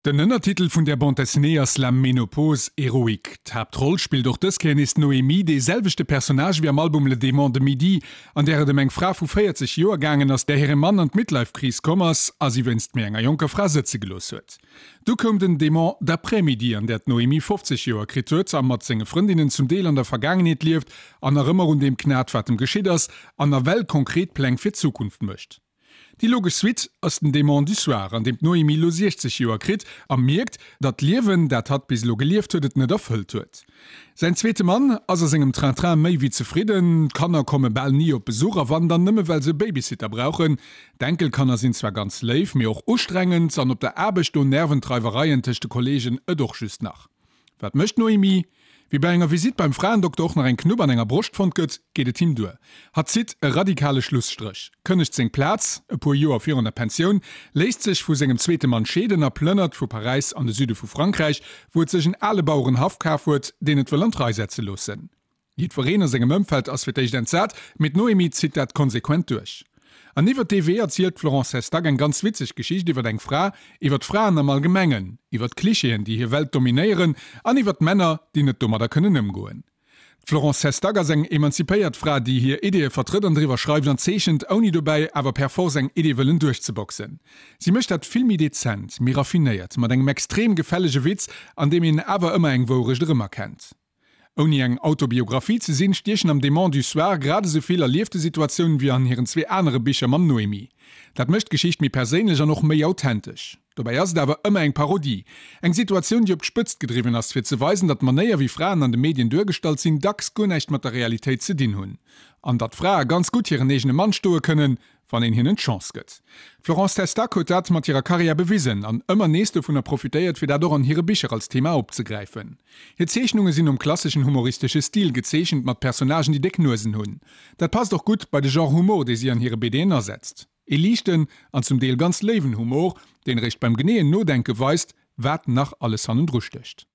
Den Ënnertitel vun där Bande dessinée ass La ménopause héroïque. D'Haaptroll spillt och dës Kéier nees d'Noémie, dee selwechte Personnage wéi am Album Le démon de midi, an där et ëm eng Fra vu 40 Joer gaangen ass, där hire Mann an d'Midlife-Kris komm ass a si wéinst méi enger jonker Fra sëtze gelooss huet. Du koum den Démon d'après-midi, an där d'Noémie 50 Joer kritt huet a mat senge Frëndinnen zum Deel an der Vergaangenheet lieft an nach ëmmer un deem knat, wat em geschitt ass, an nawell konkret Pläng fir d'Zukunft mécht. Déi logesch Suite ass den Démon du soir, an deem d'Noémie lo 60 Joer kritt a mierkt, datt d'Liewen, dat hatt bis elo gelieft huet, et net erfëllt huet. Säin zweete Mann ass a sengem Train-Train méi wéi zefridden, d'Kanner komme bal ni op Besuch a wann, dann nëmme well se e Babysitter brauchen. D'Enkelkanner sinn zwar ganz léif, mee och ustrengend an op der Aarbecht do nerven d'Reiwereien tëscht de Kolleegen et och just nach. Wat mécht d'Noémie? Wéi bei enger Visitt beim Fraendokter och nach eng Knupp an enger Broscht fonnt gëtt, geet et him duer. Hatt zitt e radikale Schlusstréch, kënnegt seng Plaz, e puer Joer virun der Pensioun, léisst sech vu sengem zweete Mann scheeden a plënnert vu Paräis an de Süde vu Frankräich, wou et sech en ale Bauerenhaff kaf huet, deen et wëll an d'Rei setze loossen. Jiddwereen a sengem Ëmfeld ass fir d'éischt entsat, mee d'Noémie zitt dat konsequent duerch. An iwwert dee Wee erzielt d'Florence Sestac eng ganz witzeg Geschicht iwwert eng Fra, iwwert d'Fraen am Allgemengen, iwwert d'Klichéen, déi hir Welt dominéieren, an iwwert d'Männer, déi net domadder kënnen ëmgoen. D'Florence Sestac ass eng emanzipéiert Fra, déi hir Ideeë vertrëtt an driwwer schreift an zeechent, ouni dobäi awer per force eng Idee wëllen duerchzeboxen. Si mécht dat vill méi dezent, méi raffinéiert, mat engem extrem gefällege Witz, an deem een awer ëmmer eng Wourecht erëmerkennt. Ouni eng Autobiographie ze sinn, stiechen am Démon du soir grad esou vill erliefte Situatiounen wéi an hiren zwee anere Bicher mam Noémie. Dat mécht d'Geschicht méi perséinlech an och méi authentesch. Dobäi ass et awer ëmmer eng Parodie, eng Situatioun, déi op d'Spëtzt gedriwwen ass, fir ze weisen, datt d'Manéier, wéi Fraen an de Medien duergestallt sinn, dacks guer näischt mat der Realitéit ze dinn hunn. An datt Frae ganz gutt hiren eegene Mann stoe kënnen, wann een hinnen d'Chance gëtt. D'Florence Testac huet dat mat hirer Karriär bewisen an ëmmer nees dovunner profitéiert, fir dat och an hire Bicher als Thema opzegräifen. Hir Zeechnunge sinn nom klasseschen humoristesche Stil gezeechent, mat Personnagen, déi déck Nuesen hunn. Dat passt och gutt bei de Genre Humor, dee si an hire BDen asetzt. Ee liichten an zum Deel ganz léiwen Humor, deen eréischt beim geneeën Nodenke weist, wat nach alles hannendru stécht.